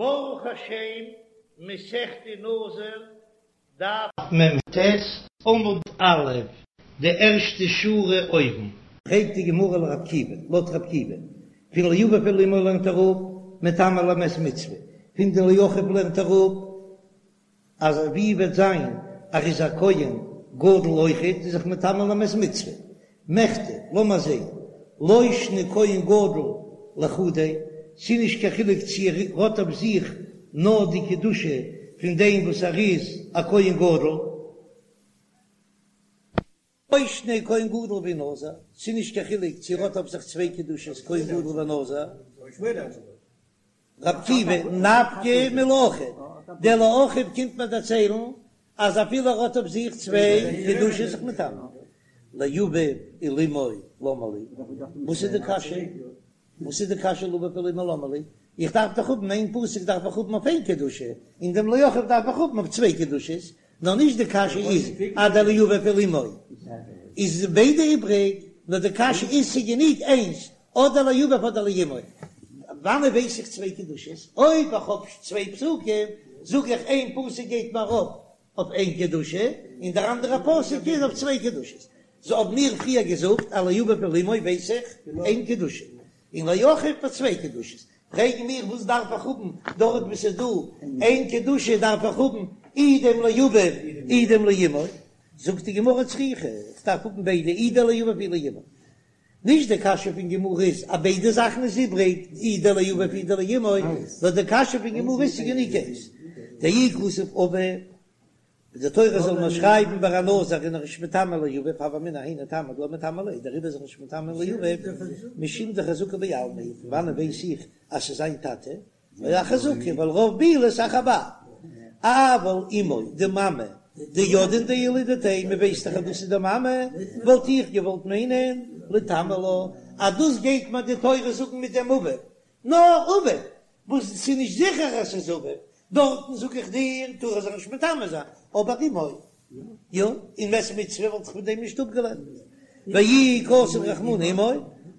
ברוך השם, מסכת נזיר, דף מ"ט, עמוד א', די ערשטע שורה אויבן. פרעגט די גמרא לרבי עקיבא, לויט רבי עקיבא, פון לאביו ולאמו לערנט ער אפ, מטמא למת מצוה, פון די לאחיו לערנט ער אפ, אז ווי וועט זיין ער איז א כהן גדול אויכעט איז זיך מטמא למת מצוה, מכדי, לאמער זעהן, לא שנא כהן גדול לחודיה, ס'איז נישט קיין חילוק צו ער האט אויף זיך נאר די קדושה פון דעם וואס ער איז א כהן גדול, לא שנא כהן גדול ונזיר, ס'איז נישט קיין חילוק צו ער האט אויף זיך צוויי קדושות כהן גדול ונזיר. רבי עקיבא, נפקא מלאחיו, דער לאחיו קומט מיר דערציילן אז אפילו ער האט אויף זיך צוויי קדושות זיך מטמא לאביו ולאמו למה לי, וואס איז די קשיא? וואס איז די קשיא לאביו ולאמו למה לי? איך דארף דאך האבן איין פסוק דארף איך האבן אויף איין קדושה, און דעם לאחיו דארף איך האבן אויף צוויי קדושות, נאר נישט די קשיא איז אז דער לאביו ולאמו איז ביידע איבריג, נאר די קשיא איז ס'גענוג איינס אדער לאביו אדער לאמו, וואנען ווייס איך צוויי קדושות? אויב איך האב צוויי פסוקים זאג איך איין פסוק גייט מיר ארויף אויף איין קדושה און דער אנדערע פסוק איז אויף צוויי קדושות, סאו האבן מיר פריער געזאגט אז לאביו ולאמו ווייס איך איין קדושה און לאחיו פאר צוויי קדושות, פרעגן מיר וואס דארף איך האבן דארט וואו ס'איז דא איין קדושה דארף איך האבן אי דעם לאביו אי דעם לאמו, זאגט די גמרא צריכא איך דארף האבן ביידע אי דער לאביו אי לאמו, נישט די קשיא פון גמרא איז אז ביידע זאכן איז איבריג אי דער לאביו אי דער לאמו, נאר די קשיא פון גמרא איז ס'גענוג איינס דאי כתב אביו די תורה זאל נאר שרייבן ביי א נזיר איז ער נישט מטמא לאביו הוה אמינא היינו טעמא דלא מטמא ליה דעריבער איז ער נישט מטמא לאביו משום דחזקה בעלמא פון וואנען ווייס איך אז ס'איז זיין טאטע אחזקה ווייל רוב בעילות אחר בעל אבל אמו די מאמע דידעין דילדתיה מען ווייסט דאך אז דאס איז די מאמע וואלט איך געוואלט מיינען ליטמא לה אז דאס גייט מיר די תורה זאגן מיט דעם אביו נאר אביו וואס ס'איז נישט זיכער אז ס'איז אביו דארטן זאג איך דיר טאר ער זיך נישט מטמא זיין, אבער אמו יא, און מת מצוה וואלט איך פון דעם נישט אפגעלערנט, ואי כתב רחמנא אמו,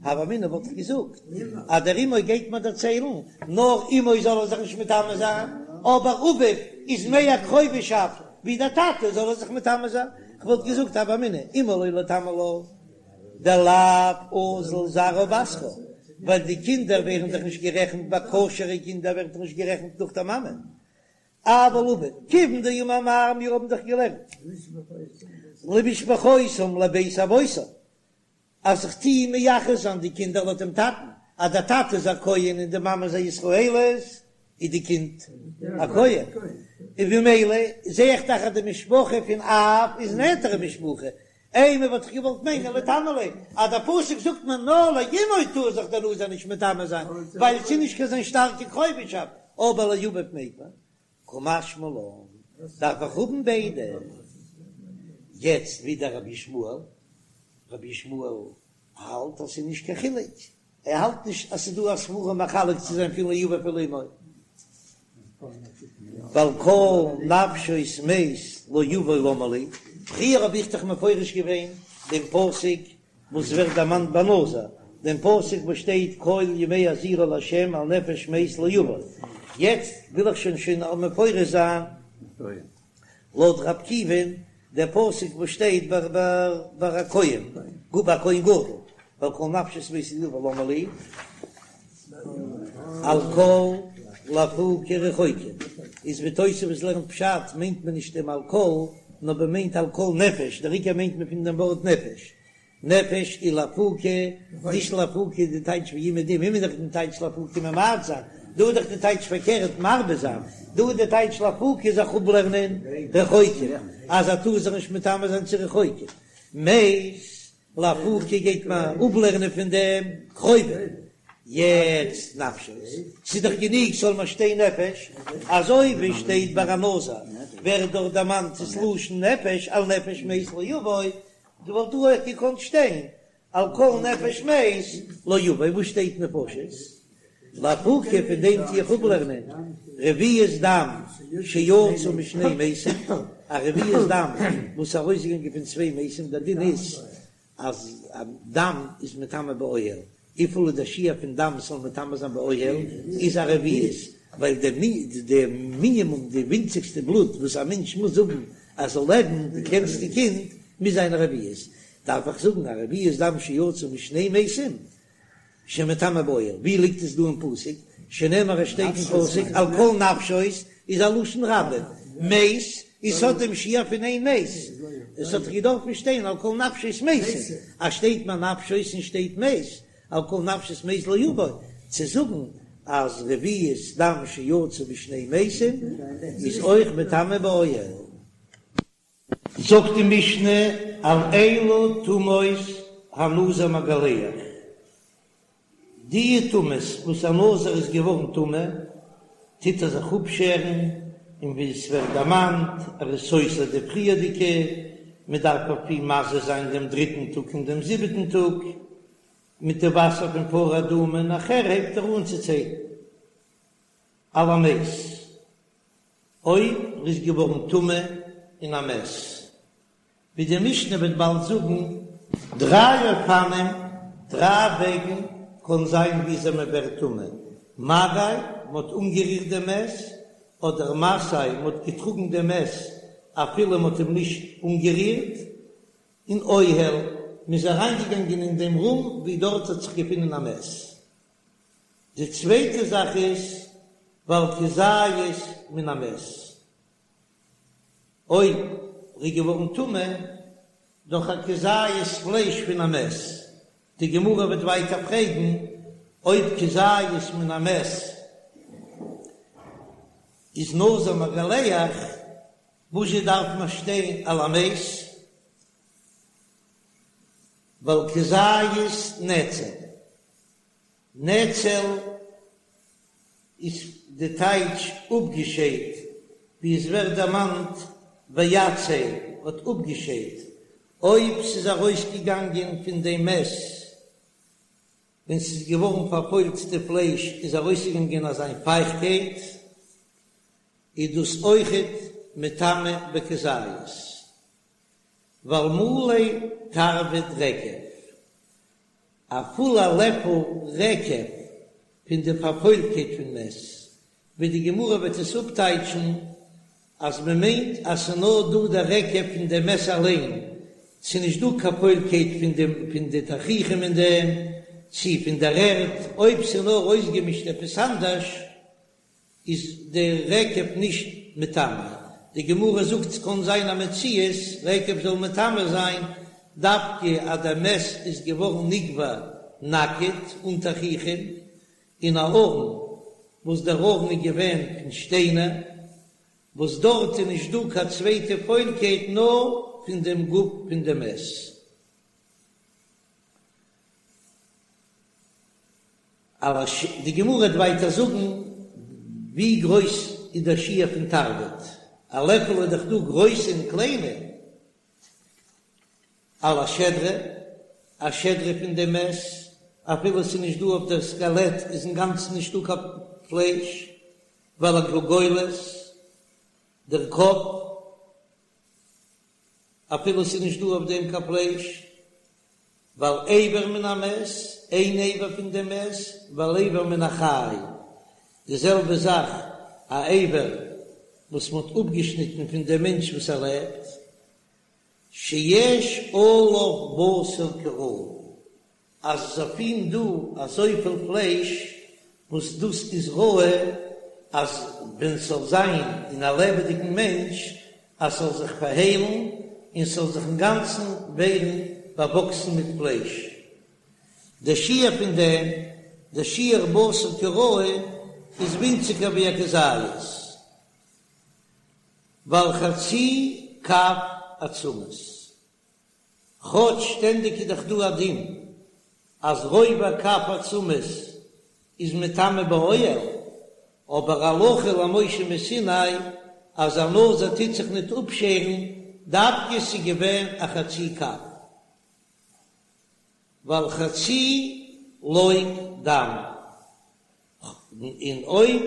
הוה אמינא וואלט איך געזאגט אז דער אמו גייט מיר דערציילן, נאר אמו זאל ער זיך נישט מטמא זיין, אבער אביו איז מער קרובהשאפט ווי דער טאטע זאל ער זיך מטמא זיין, כ'וואלט געזאגט הוה אמינא אמו לא ליטמא לה. דלאו אזיל זרעה בתרה, ווייל די קינדער ווערן דאך נישט גערעכנט ביי כשר'ע קינדער ווערט דאך נישט גערעכנט נאך דער מאמע. אבל אביו, כיוון דאמר מר, מיר האבן דאך געלערנט למשפחותם לבית אבותם, אז איך טוה מייחס זיין די קינדער לויט דעם טאטן, אז דער טאטע איז א כהן און די מאמע איז א ישראלית, איז די קינד א כהן, און במילא זע איך דאך אז די משפחה פון אב איז נענטערע משפחה, אימא וואלט איך געוואלט מיינען ליטמא ליה, אז דער פסוק זאגט מיר נאר לאמו טאר זיך דער נזיר נישט מטמא זיין, ווייל ס'איז נישט קיין זיין שטארקע קרובהשאפט, אבער לאביו מעג מען, קא משמע לן, דארף איך האבן ביידע. יעצט ווידער רבי ישמעאל, רבי ישמעאל האלט אז ס'איז נישט קיין חילוק, ער האלט נישט אז ס'איז דא א סברא מחלק צו זיין פון לאביו ולאמו, ועל כל נפשות מת לא יבוא למה לי, פריער האב איך דאך מפרש געווען דעם פסוק וואס ווערט דערמאנט ביי נזיר, דעם פסוק וואס שטייט כל ימי הזירו לה' על נפש מת לא יבוא, יעצט וויל איך שוין שוין מפרש זיין לויט ר' עקיבא'ן דער פסוק וואס שטייט ביי ביי א כהן, ביי א כהן גדול, ועל כל נפשות מת לא יבוא למה לי, על כל לאפוקי רחוקים, איז ווי תוספות לערנט פשט מיינט מען נישט דעם על כל, נאר מען מיינט על כל נפש, דער עיקר מיינט מען פון דעם ווארט נפש, נפש איז לאפוקי, נישט לאפוקי די טייטש ווי אומעדום, איז דאך די טייטש לאפוקי ממעט זיין, דא איז דאך די טייטש פארקערט מרבה זיין, דא איז די טייטש לאפוקי זיך אפלערנען רחוקים, אז ער טאר זיך נישט מטמא זיין צו רחוקים, מת לאפוקי גייט מען אפלערנען פון דעם קרובים, יעצט נפשות, ס'איז דאך גענוג ס'זאל נאר שטיין נפש, אזוי ווי שטייט ביי א נזיר ווערט דארט דערמאנט ס'לשון נפש על נפש מת לא יבוא, דא וואלט דא אויך געקאנט שטיין על כל נפש מת לא יבוא, וואס שטייט נפשות? לאפוקי פון דעם טו איך אפלערנען רביעית דם שיצא משני מתים, א רביעית דם וואס איז ארויסגעגאנגען פון צוויי מתים, דער דין איז אז דם איז מטמא באוהל, וויפיל איז דער שיעור פון דם ס'זאל מטמא זיין באוהל איז א רביעית. ווייל די מינימום, די ווינציגסטע בלוט וואס א מענטש מוז האבן אז זאל לעבן, די קלענסטע קינד, מוז זיין א רביעית, דארף איך זאגן א רביעית דם שיצא משני מתים שמטמא באוהל, ווי ליגט עס דא אין פסוק? שנאמר עס שטייט אין פסוק על כל נפשות איז א לשון רבים, מת איז ס'האט דעם שיעור פון איין מת, עס האט דאך געדארפן שטיין על כל נפשות מתים, אז שטייט מיר נפשות און שטייט מת, על כל נפשות מת לא יבוא, צו זאגן אז רביעית דם שיצא משני מתים איז אויך מטמא באוהל. זאגט די משנה על אילו טומאות הנזיר מגלח, די טומאות וואס א נזיר איז געווארן טמא, טוט ער זיך אפשערן, און ווי עס ווערט דערמאנט, ער איז סותר די פריערדיגע, מען דארף אויף אים מזה זיין דעם דריטן טאג און דעם זיבעטן טאג, מיט די וואסער פון פרה אדומה, נאכער הייבט ער אן צו ציילן על המת. אויב ער איז געווארן טמא אין א מת, ווי די משנה וועט באלד זאגן, דריי אופנים, דריי וועגן קען זיין וויאזוי מען ווערט טמא, מגע, מען האט אנגערירט דעם מת, אדער משא, מען האט געטראגן דעם מת אפילו מען האט אים נישט אנגערירט, און אוהל, מען איז אריינגעגאנגען אין דעם רום ווי דארט האט זיך געפונען א מת. די צווייטע זאך איז ועל כזית מן המת, אויב ר'איז געווארן טמא דורך א כזית פלייש פון א מת, די גמרא וועט ווייטער פרעגן אויב כזית מן המת איז נזיר מגלח, וואזשע דארף מען שטיין על המת? ועל כזית נצל. נצל איז די טייטש אפגעשיידט, ווי עס ווערט דערמאנט ויצל האט אפגעשיידט, אויב ס'איז ארויסגעגאנגען פון דעם מת ווען ס'איז געווארן פארפוילט די פלייש איז ארויסגעגאנגען אזיין פייכטקייט, איז דאס אויכעט מטמא בכזית. ועל מלא תרווד רקב, א פולע לעפל רקב פון די פארפוילטקייט פון מת, ווי די גמרא וועט עס אפטייטשן אז מען מיינט אז ס'איז נאר דא דער רקב פון דעם מת אליין, ס'איז נישט דא קיין פוילקייט פון די פון די תכריכים אין דעם, צי פון דער ערד, אויב ס'איז נאר אויסגעמישט עפעס אנדערש. איז די רקב נישט מטמא, די גמרא זאגט ס'קאן זיין א מציאות רקב זאל מטמא זיין דווקא אז דער מת איז געווארן נקבר נאקעט אן תכריכים אין א ארון וואס דער ארון איז געווען פון שטיינער וואס דארט איז נישט דא קיין צווייטע פוילקייט נאר פון דעם גוף פון דעם מת. על הש די גמרא וועט ווייטער זאגן ווי גרויס איז דער שיעור פון תרווד, א לעפל איז דאך דא גרויסע און קליינע, על השדרה, א שדרה פון דעם מת, אפילו עס איז נישט דא אויף דער סקעלעט איז אינגאנצן נישטא קיין פלייש, ועל הגולגולת, דער קאפ, אפילו עס איז נישט דא אויף דעם קיין פלייש, ועל אבר מן המת, איין אבר פון דעם מת, ועל אבר מן החי, די זעלבע זאך א אבר וואס מען האט אפגעשניטן פון דעם מענטש וואס ער לעבט, שיש עליו בשר כראוי, אז עס איז אויף אים דא אזויפיל פלייש וואס דאס איז ראוי אז ווען ס'זאל זיין אין א לעבעדיגן מענטש אז ס'זאל זיך פארהיילן און ס'זאל זיך אינגאנצן ווערן באוואקסן מיט פלייש. דער שיעור פון דעם, דער שיעור בשר כראוי, איז ווינציגער ווי א כזית, ועל חצי קב עצמות. כאטש שטענדיג איז דאך דא א דין אז רובע קב עצמות איז מטמא באוהל, אבער הלכה למשה מסיני אז א נזיר טוט זיך ניט אפשערן דווקא ס'איז געווען א חצי קב ועל חצי לוג דם. און אויב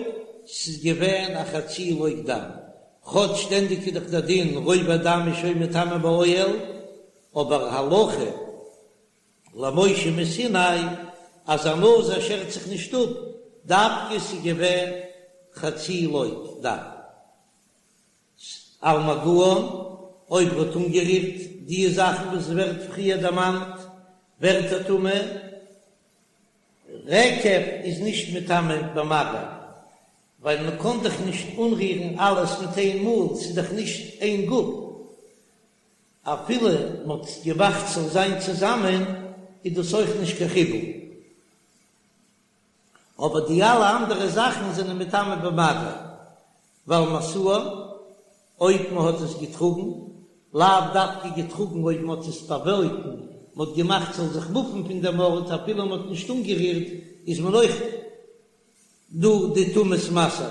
ס'איז געווען א חצי לוג דם, כאטש שטענדיג איז דאך דער דין רובע דם איז שוין מטמא באוהל, אבער הלכה למשה מסיני אז א נזיר שערט זיך נישט אפ, דווקא ס'איז געווען. חצי לוג דם. על מגען, אויב ער האט אנגערירט די זאכן וואס ווערט פריער דערמאנט, ווערט ער טמא. רקב איז נישט מטמא במגע, ווייל מען קען דאך נישט אנרירן אלעס מיט איין מאל, ס'איז דאך נישט איין גוף. אפילו מען האט געמאכט ס'זאל זיין צוזאמען, איז דאס אויך נישט קיין חיבור. אבער די אלע אנדערע זאכן זענען מטמא במגע, ועל משאן, אויב מען האט עס געטראגן, לאו דווקא געטראגן אויב מען האט עס באוואויגן, מען האט געמאכט ס'זאל זיך מופן פון דעם ארט אפילו מען האט נישט אנגערירט, איז מען אויך דא די טומאת משא.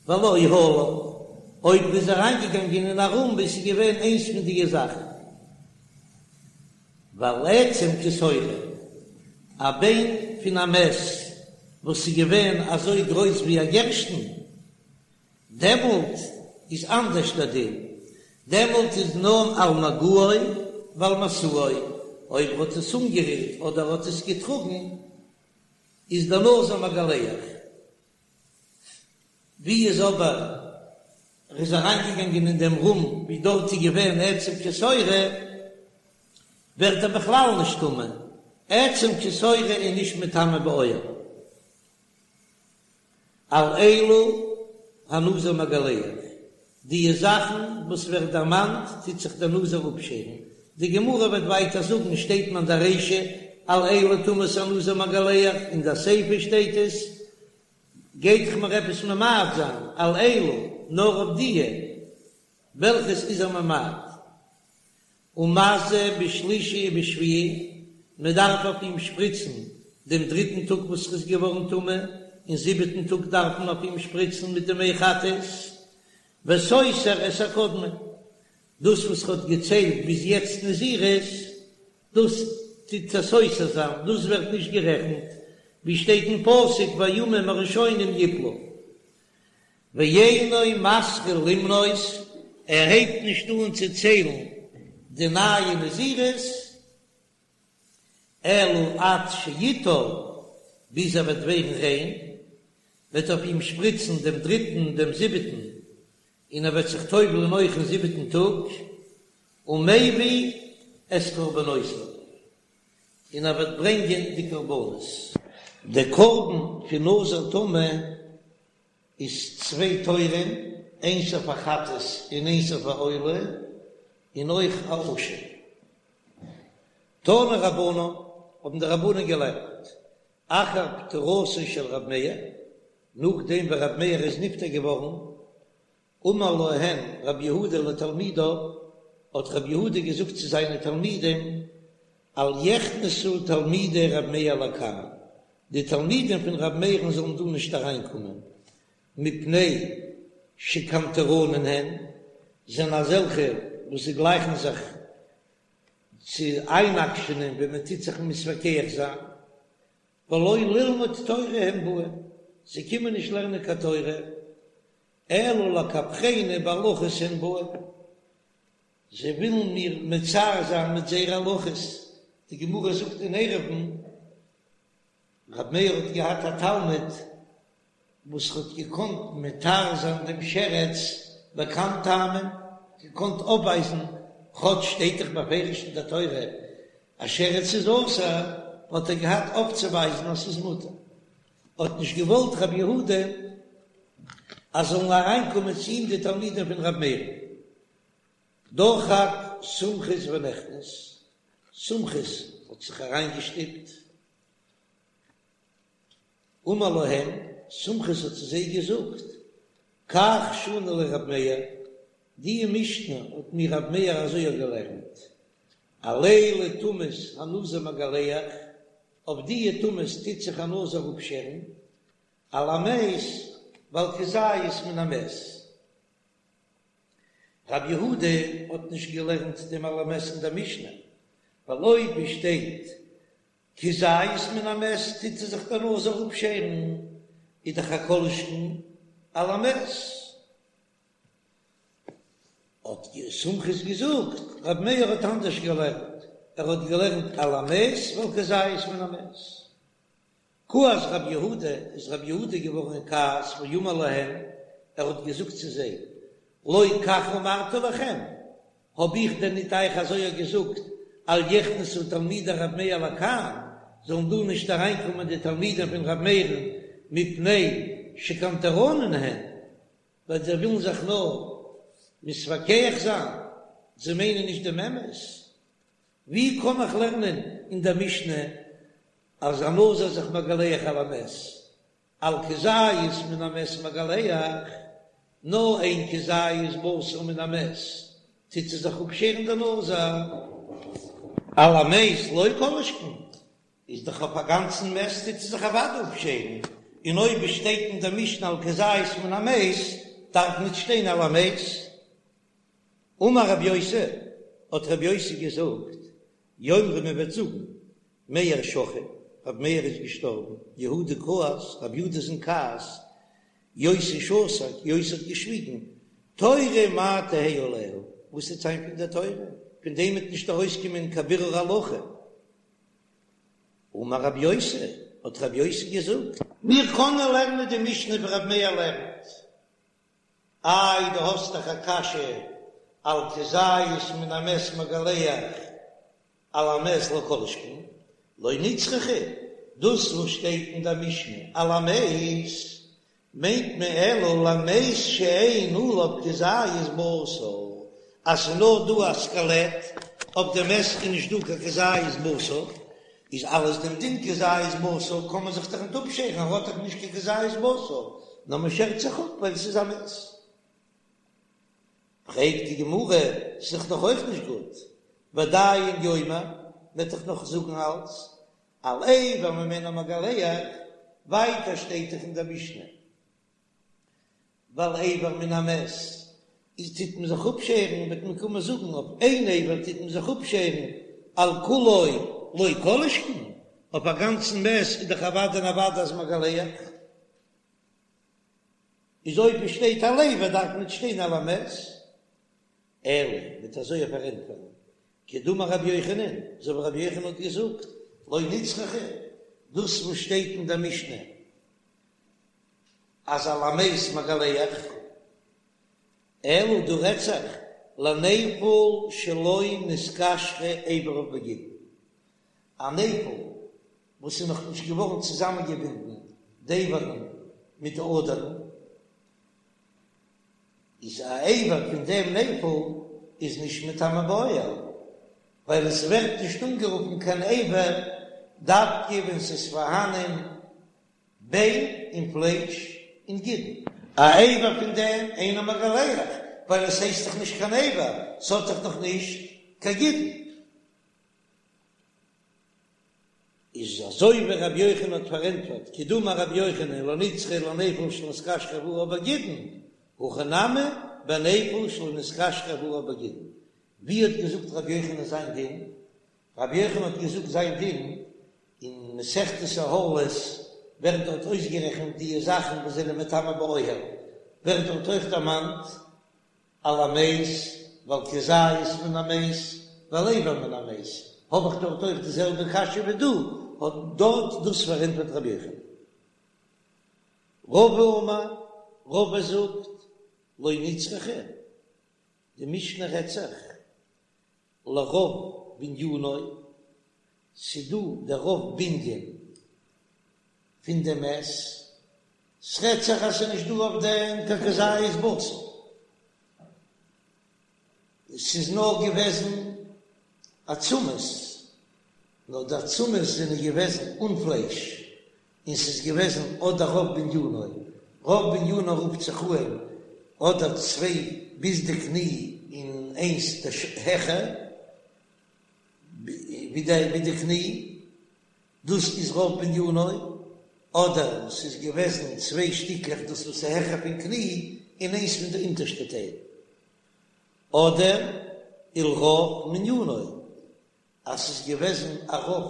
ועל אהלן, אויב מ'איז אריינגעגאנגען אין א רום וואו ס'איז געווען איינס פון דיע זאכן. ועל עצם כשעורה, א ביין פון א מת וואס איז געווען אזוי גרויס ווי א גערשטן, דעמאלט איז אנדערש דער דין, דעמאלט איז נאר על מגעו ועל משאו, אויב ער האט עס אנגערירט אדער האט עס געטראגן, איז דער נזיר מגלח. ווי איז אבער ער איז אריינגעגאנגען אין דעם רום ווי דארט איז געווען עצם כשעורה, ווערט ער בכלל נישט טמא, עצם כשעורה איז נישט מטמא באוהל. על אלו הנזיר מגלח, די זאכן וואס ווערט דערמאנט טוט זיך דער נזיר אפשערן, די גמרא וועט ווייטער זאגן שטייט מען די רישא על אלו טומאות הנזיר מגלח, אין די סיפא שטייט עס, גייט דאך מיר עפעס ממעט זיין על אלו נאר אויף דיע וועלכעס איז ער ממעט, ומזה בשלישי ובשביעי, מען דארף אויף אים שפריצן דעם דריטן טאג וואס ער איז געווארן טמא, און זיבעטן טאג דארף מען אויף אים שפריצן מיט די מי חטאת, וסותר את הקודמין, דאס וואס ער האט געציילט ביז יעצט נזירות, דאס טוט ער סותר זיין, דאס ווערט נישט גערעכנט, ווי שטייט אין פסוק והימים הראשונים יפלו. ואינו מתחיל למנות, ער הייבט נישט אן צו ציילן די נייע נזירות, אלא עד שיטהר, ביז ער וועט ווערן ריין, וועט אויף אים שפריצן דעם דריטן און דעם זיבעטן, און ער וועט זיך טובל'ן אויך אין זיבעטן טאג, ומביא את קרבנותיו, און ער וועט ברענגען די קרבנות. דער קרבן פון נזיר טמא איז צוויי תורים, איינס אויף א חטאת און איינס אויף א עולה, און אויך א אשם. תנו רבנן, האבן די רבנן געלערנט, אחר פטירתו של ר' מאיר, נאכדעם ווען ר' מאיר איז נפטר געווארן, אמר להן ר' יהודה לתלמידיו, האט ר' יהודה געזאגט צו זיינע תלמידים, אל יכנסו תלמידי ר' מאיר לכאן, די תלמידים פון ר' מאיר'ן זאלן דא נישט אריינקומען, מפני שקנטרנין הן, זענען אזעלכע וואס זיי גלייכן זיך צו איינאקשענען ווען מען טוט זיך מתווכח זיין, ולא ללמוד תורה הם באין, זיי קומען נישט לערנען קיין תורה, אלא לקפחני בהלכות הן באין, זיי ווילן מיר מצער זיין מיט זייערע הלכות, די גמרא זאגט אין עירובין, רבי מאיר האט געהאט א תלמיד וואס האט געקאנט מתיר זיין דעם שרץ בכמה טעמים, געקאנט אויפווייזן, כאטש שטייט דאך בפירוש אין דער תורה אז שרץ איז אסור, האט ער געהאט אויפצוווייזן אז ס'איז מותר. האט נישט געוואלט רבי יהודה אז זאלן אריינקומען צו אים די תלמידים פון רבי מאיר. דחק סומכוס ונכנס, סומכוס האט זיך אריינגעשטופט. אמר להם, סומכוס האט צו זיי געזאגט, כך שנה לי רב מאיר, די משנה האט מיר רב מאיר אזוי געלערנט, על אלו טומאות הנזיר מגלח, אויף די טומאות טוט זיך א נזיר אפשערן, על המת ועל כזית מן המת. רב יהודה האט נישט געלערנט דעם על המת אין דער משנה, ווייל אויב עס שטייט כזית מן המת טוט זיך דער נזיר אפשערן, איז דאך א כל שכן על המת. האט סומכוס געזאגט, רבי מאיר האט אנדערש געלערנט, ער האט געלערנט על המת ועל כזית מן המת. כעס רב יהודה, איז רב יהודה געווארן אין כעס, ואמר להם, ער האט געזאגט צו זיי, לא כך אמרתי לכם, האב איך דען ניט אייך אזוי געזאגט, אל יכנסו תלמידי רב מאיר לכאן, זאלן דא נישט אריינקומען די תלמידים פון רב מאיר'ן, מפני שקנטרנין הן, ווייל זיי ווילן זיך נאר מתווכח זיין, זיי מיינען נישט דעם אמת. ווי קען איך לערנען אין דער משנה אז א נזיר איז זיך מגלח על המת, על כזית מן המת מגלח, נאר איין כזית בשר מן המת טוט ער זיך אפשערן דער נזיר, על המת לא כל שכן, איז דאך אויף א גאנצן מת טוט ער זיך אוודאי אפשערן, און אויב עס שטייט אין דער משנה על כזית מן המת דארף ניט שטיין על המת. אמר רבי יוסי, האט רבי יוסי געזאגט, יאמרו מען וועט זאגן, מאיר שכיב, רבי מאיר איז געשטארבן, יהודה כעס, רבי יהודה איז אין כעס, יוסי שתק, יוסי האט געשוויגן, תורה מה תהא עליה, וואס וועט זיין פון דער תורה, פון דעם וועט נישט ארויסקומען קיין בירור הלכה. אמר רבי יוסי, האט רבי יוסי געזאגט. מיר קענען לערנען די משנה ווי רבי מאיר לערנט, איי דו האסט דאך א קשיא על כזית מן המת מגלח על המת לא כל שכן, לא נצרכה, דאס וואס שטייט אין דער משנה על המת מיינט מען אלא למת שאין עליו כזית בשר, אז ס'איז נאר דא א סקעלעט, אויף דעם מת איז נישט דא קיין כזית בשר, איז אלץ דעם דין כזית בשר קען מען זיך דאך ניט אפשערן, ער האט דאך נישט קיין כזית בשר, נאר מען שערט זיך אפ ווייל ס'איז א מת. פרעגט די גמרא, ס'איז דאך נאך אויך נישט גוט, ועדיין יאמר, מ'וועט דאך נאך זאגן אלץ, על אבר ממנו מגלח, ווייטער שטייט דאך אין דער משנה, ועל אבר מן המת איז טוט מען זיך אפשערן, וועט מען קומען זאגן אויף איין אבר טוט מען זיך אפשערן, על כולו לא כל שכן, אויף א גאנצן מת איז דאך אוודאי און אוודאי אז מגלח. איז אויב עס שטייט על אבר דארף ניט שטיין על המת, אלא מ'וועט אזוי פארענטפערן, כדאמר רבי יוחנן, אזוי ווי רבי יוחנן האט געזאגט, לא נצרכה, דאס וואס שטייט אין דער משנה אז על המת מגלח, אלא דא רעדט זיך לנפל שלא נתקשרו איבריו בגידין, א נפל וואס איז נאך נישט געווארן צוזאמענגעבינדן די איברים מיט די אדערן, איז א אבר פון דעם נפל איז נישט מטמא באוהל, ווייל עס ווערט נישט אנגערופן קיין אבר דווקא ווען ס'איז פארהאנען ביין און פלייש און גידין. א אבר פון דעם אינו מגלח, ווייל עס הייסט דאך נישט קיין אבר, ס'האט דאך נאך נישט קיין גידין. איז אזוי ווי רבי יוחנן האט פארענטפערט, כדאמר רבי יוחנן לא נצרכה לנפל שלא נתקשרו איבריו בגידין, הכא נמי בנפל שלא נתקשרו איבריו בגידין. ווי האט געזאגט רבי יוחנן זיין דין? רבי יוחנן האט געזאגט זיין דין אין מסכת אהלות ווערט דארט אויסגערעכנט די זאכן וואס זענען מטמא באוהל, ווערט דארט אויך דערמאנט על המת ועל כזית מן המת ועל אבר מן המת, האב איך דארט אויך די זעלבע קשיא ווי דא, האט דארט דאס פארענטפערט רבי יוחנן. רבא אמר, רבא זאגט, לא נצרכה, די משנה רעדט זיך לרוב בנינו, ס'דא דער רוב בנין פון דעם מת, ס'רעדט זיך אז ס'איז נישט דא אויף דעם קיין כזית בשר, ס'איז נאר געוועזן עצמות, נאר די עצמות זענען געוועזן אן פלייש, און ס'איז געוועזן אדער רוב בנינו, רוב בנינו רופט זיך אן אדער צוויי ביז די קני און איינס העכער ווי די קני, דאס איז רוב בנינו, אדער ס'איז געוועזן צוויי שטיקלעך דאס וואס איז העכער פון קני און איינס פון די אונטערשטע טייל, אדער ולרוב מנינו, אז ס'איז געוועזן א רוב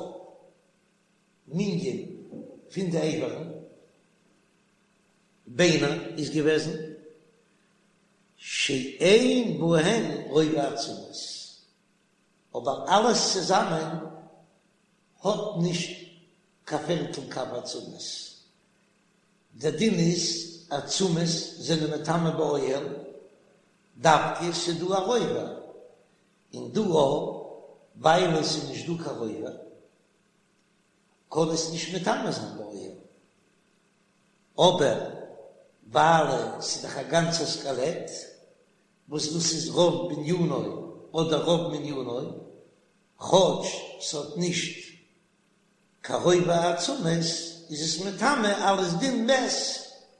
מנין פון די אברים, ביינער איז געוועזן שאין בהן רובע עצמות, אבער אלעס צוזאמען האט נישט. קיין פערטל קב עצמות. דער דין איז עצמות זענען מטמא באוהל, דווקא ס'איז דא א רובע, און דא אויך ווייל עס איז נישט דא קיין רובע קען עס נישט מטמא זיין באוהל, אבער ווייל עס איז דאך א גאנצע סקעלעט וואס דאס איז רוב בנינו אדער רוב מנינו, כאטש ס'האט נישט קיין רובע עצמות איז עס מטמא אלס דין מת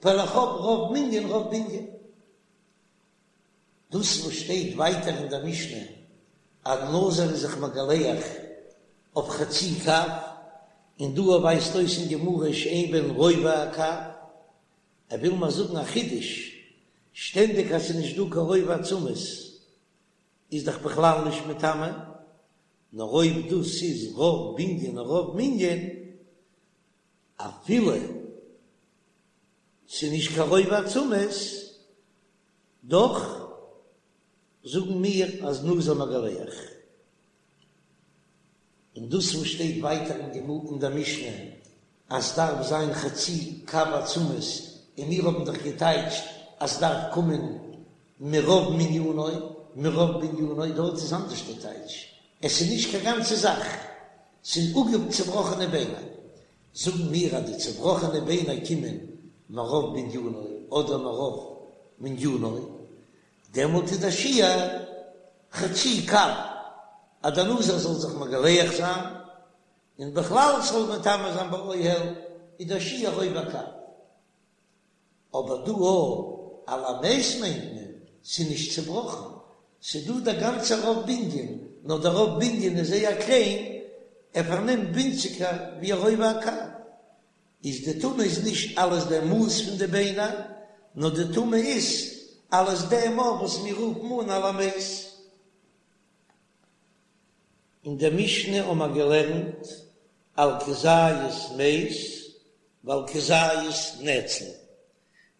ווייל איך האב רוב מנין רוב בנין. דאס וואס שטייט ווייטער אין דער משנה אז נזיר איז זיך מגלח אויף חצי קב, און דא ווייזט אויס אין גמרא שאין בהן רובע הקב, ער וויל מיר זאגן א חידוש, שטענדיג אז ס'איז נישט דא קיין רובע עצמות איז דאך בכלל נישט מטמא, נאר אויב דאס איז רוב בנין און רוב מנין, אפילו ס'איז נישט קיין רובע עצמות, דאך זאגן מיר אז נזיר מגלח. און דאס וואס שטייט ווייטער אין גמ' אין דער משנה אז ס'דארף זיין חצי קב עצמות, און מיר האבן דאך געטייטשט אז ס'דארף קומען מרוב מנינו, מרוב בנינו, דארט איז אנדערש די טייטש, עס איז נישט קיין גאנצע זאך, ס'איז אפגע צובראכענע ביינער, זאגן מיר אז די צובראכענע ביינער קומען מרוב בנינו אדער מרוב מנינו, דעמאלט איז דער שיעור חצי קב אז דער נזיר זאל זיך מגלח זיין, און בכלל ס'זאל מטמא זיין באוהל איז דער שיעור רובע קב. אבער דא אויך על המת מיינט מען ס'איז נישט צובראכן, ס'איז דא דער גאנצער רוב בנין, נאר דער רוב בנין איז זייער קליין, ער פארנעמט ווינציגער ווי א רובע הקב, איז די טומאה איז נישט אלס דער מאס פון די ביינער, נאר די טומאה איז אלס דעם וואס מיר רופן אן על המת. אין דער משנה האבן מיר געלערנט על כזית מת ועל כזית נצל,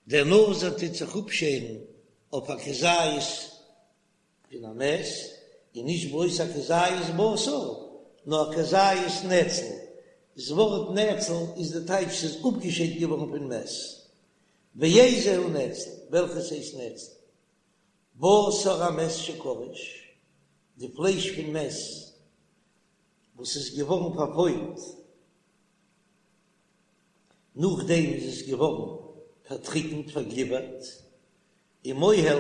דער נזיר טוט זיך אפשערן אויף א כזית פון א מת, און נישט בלויז א כזית בשר, נאר א כזית נצל, דאס ווארט נצל איז די טייטש ס'איז אפגעשיידט געווארן פון מת, ואיזהו נצל, וועלכעס הייסט נצל? בשר המת שקרש, די פלייש פון מת וואס איז געווארן פארפוילט, נאכדעם איז עס געווארן פארטריקנט, פארגליווערט, ומוהל,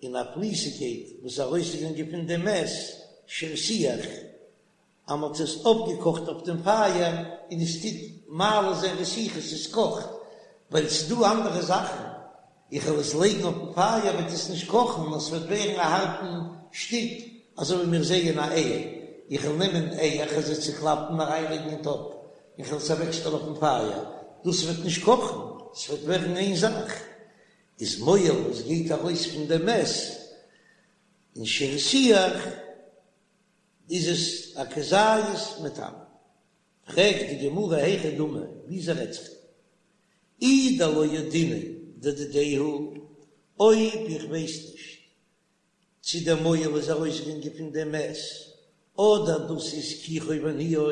און א פליסיגקייט וואס איז ארויסגעגאנגען פון דעם מת, שהרתיח, אז מען האט עס אויפגעקאכט אויף דעם פייער און עס טוט מעלה זיין רתיחה, עס קאכט, ווייל עס איז דא אנדערע זאכן, איך וועל עס לייגן אויפן פייער וועט עס נישט קאכן נאר עס וועט ווערן א הארטן שטיק, אזוי ווי מיר זעען א אייער, איך וועל נעמען אייער, איך וועל זיי צוקלאפן און אריינלייגן אין טאפ, און איך וועל עס אוועקשטעלן אויפן פייער, דאס וועט נישט קאכן, עס וועט ווערן איין זאך, איז מוהל וואס גייט ארויס פון דעם מת און שהרתיח. איז עס א כזית מטמא. פרעגט די גמרא היכי דמי, וויאזוי רעדט זיך דא? אי דלא ידעינן דדידיה הוא, אויב איך ווייס נישט צי דער מוהל איז ארויסגעגאנגען פון דעם מת, אדער דאס איז כיחו וניעו,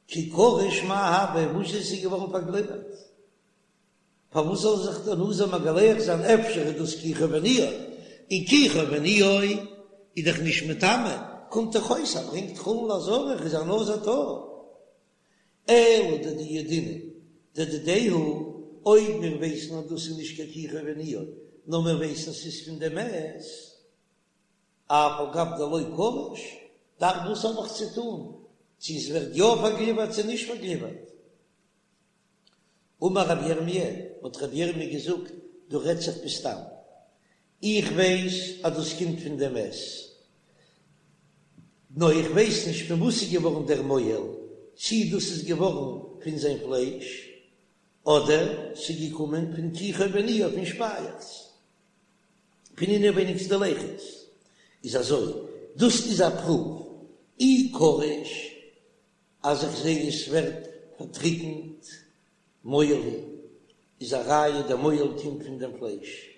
כי קריש מאי הוי, וואס איז עס געווארן פארגליווערט? פארוואס זאל זיך דער נזיר מגלח זיין אפשר איז דאס כיחו וניעו, און כיחו וניעו איז דאך נישט מטמא, קומט דאך אויס אז ברענגט חולין לעזרה איז א נזיר טהור. אלא דדידעינן דדידיה הוא, אויב מיר ווייסן אז דאס איז נישט קיין כיחו וניעו, נאר מיר ווייסן ס'איז פון די מת, אף על גב דלא קריש, דאך וואס האב איך צו טון צו עס ווערט יא פארגליווערט צו נישט פארגליווערט? אמר רבי ירמי', האט רבי ירמי' געזאגט, דא רעדט זיך בסתם, איך ווייס אז דאס קומט פון דעם מת, נאר איך ווייס נישט פון וואס איז געווארן דער מוהל, צי דאס איז געווארן פון זיין פלייש, אדער ס'איז געקומען פון כיחו וניעו פון שפייעכץ, פון אינעווייניגסטע לחות, איז אזוי, דאס איז א פרואוו, אי קריש אז איך זעה עס ווערט פארטריקנט מוהל הוא, איז א ראיה דער מוהל קומט פון דעם פלייש,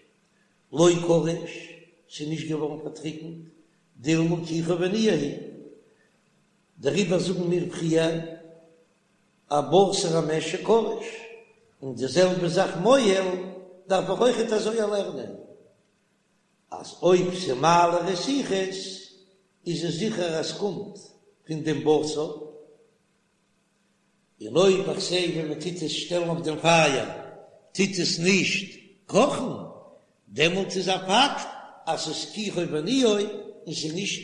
לא קריש, ס'איז נישט געווארן פארטריקנט, דילמא כיחו וניעו הוא, דעריבער זאגן מיר פריער. א בשר המת שקרש, און די זעלבע זאך מוהל דארף איך אויכעט אזוי לערנען, אז אויב ס'מעלה רתיחות איז עס זיכער אז ס'קומט פון דעם בשר, און אויב איך זע ווען מען טוט עס שטעלן אויף דעם פייער טוט עס נישט קאכן, דעמאלט איז א פאקט אז ס'איז כיחו וניעו און ס'איז נישט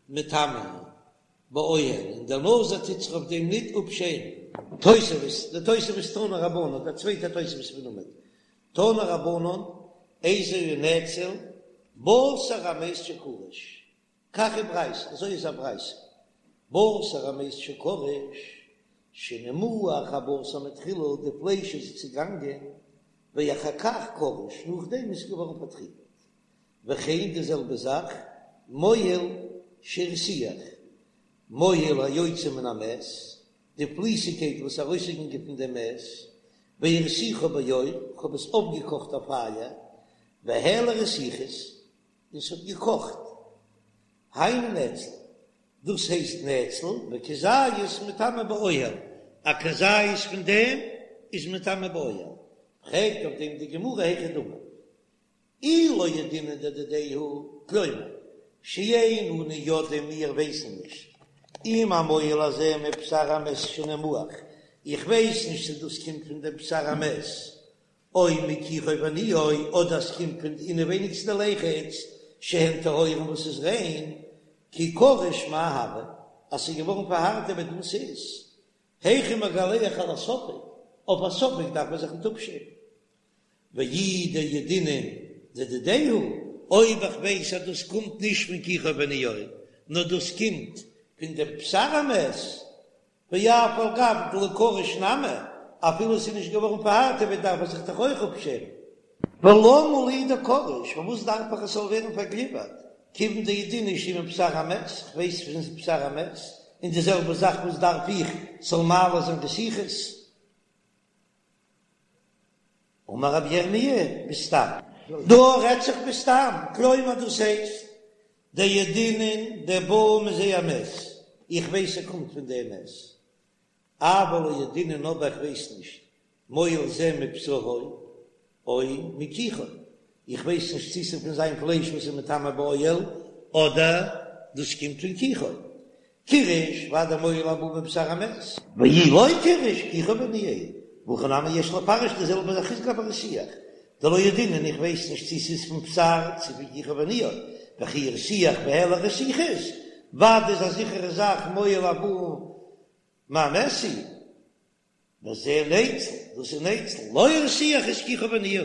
מטמא באוהל און דער נזיר טוט זיך אויף דעם ניט אפשערן. תוספות, די תוספות תנו רבנן, דער צווייטער תוספות פון עמוד, תנו רבנן, איזהו נאצל, בשר המת שקרש, כך היא ברייתא, אזוי איז א ברייתא, בשר המת שקרש, שנמעך הבשר מתחילה, די פלייש איז צעגאנגען, ואחר כך קרש, נאכדעם איז געווארן פארטריקנט. וכן די זעלבע זאך, מוהל שהרתיח, מוהל היוצא מן המת, די פליסיגקייט וואס איז ארויסגעגאנגען פון דעם מת, והרתיחו באור, כ'האב עס אויפגעקאכט אויף פייער, והעלה רתיחות, און ס'האט געקאכט. היינו נאצל, דאס הייסט נאצל, וכזית מטמא באוהל, א כזית פון דעם איז מטמא באוהל. פרעגט אויף דעם די גמרא היכי דמי, אי לא ידעינן דדידיה הוא, כלומר, שאין אנו יודעים מיר ווייסן נישט אם המוהל הזה מבשר המת שנמעך, איך ווייס נישט צו דאס קומט פון דעם בשר המת, או מכיחו וניעו, אדער עס קומט פון די אינעווייניגסטע ליחות שהן טהורין וואס איז ריין, כי קרש מאי הוי, אז ס'איז געווארן פארהארטעוועט וואס איז, היכי מגלח על הספק, אויף א ספק דארף מען זיך ניט אפשערן. ואי דידעינן דדידיה הוא, אויב איך ווייס אז דאס קומט נישט פון כיחו וניעו, נאר דאס קומט פון דעם בשר המת, ואף על גב דלא קרש נמי, אפילו עס איז נישט געווארן פארהארטעוועט דארף ער זיך דאך אויך אפשערן. ולמה לי דקרש, פארוואס דארף איך עס זאל ווערן פארגליווערט, כיוון דידעינן שהוא מבשר המת, איך ווייס פון בשר המת, און די זעלבע זאך וואס דארף איך ס'זאל מעלה זיין רתיחות? אמר רבי ירמי' בסתם, דא רעדט זיך בסתם, כלומר דאס הייסט, דידעינן דבא מזה המת, איך ווייס ער קומט פון דעם מת, אבל לא ידעינן אבער איך ווייס נישט, מוהל זה מבשרו או מכיחו, איך ווייס נישט צי ס'איז פון זיין פלייש וואס איז מטמא באוהל, אדער דאס קומט פון כיחו. קירש ודאי מוהל הבא מבשר המת. ואי לא קירש כיחו וניעו, והכא נמי יש לפרש די זעלבע זאך איז לגבי הרתיח, דלא ידעינן איך ווייס נישט צי ס'איז פון בשר צי פון כיחו וניעו, וכי הרתיח והעלה רתיחות, ודאי איז א זיכערע זאך מוהל הבא מהמת הוא. וזה נאצל, דאס איז נאצל, לא הרתיח איז כיחו וניעו.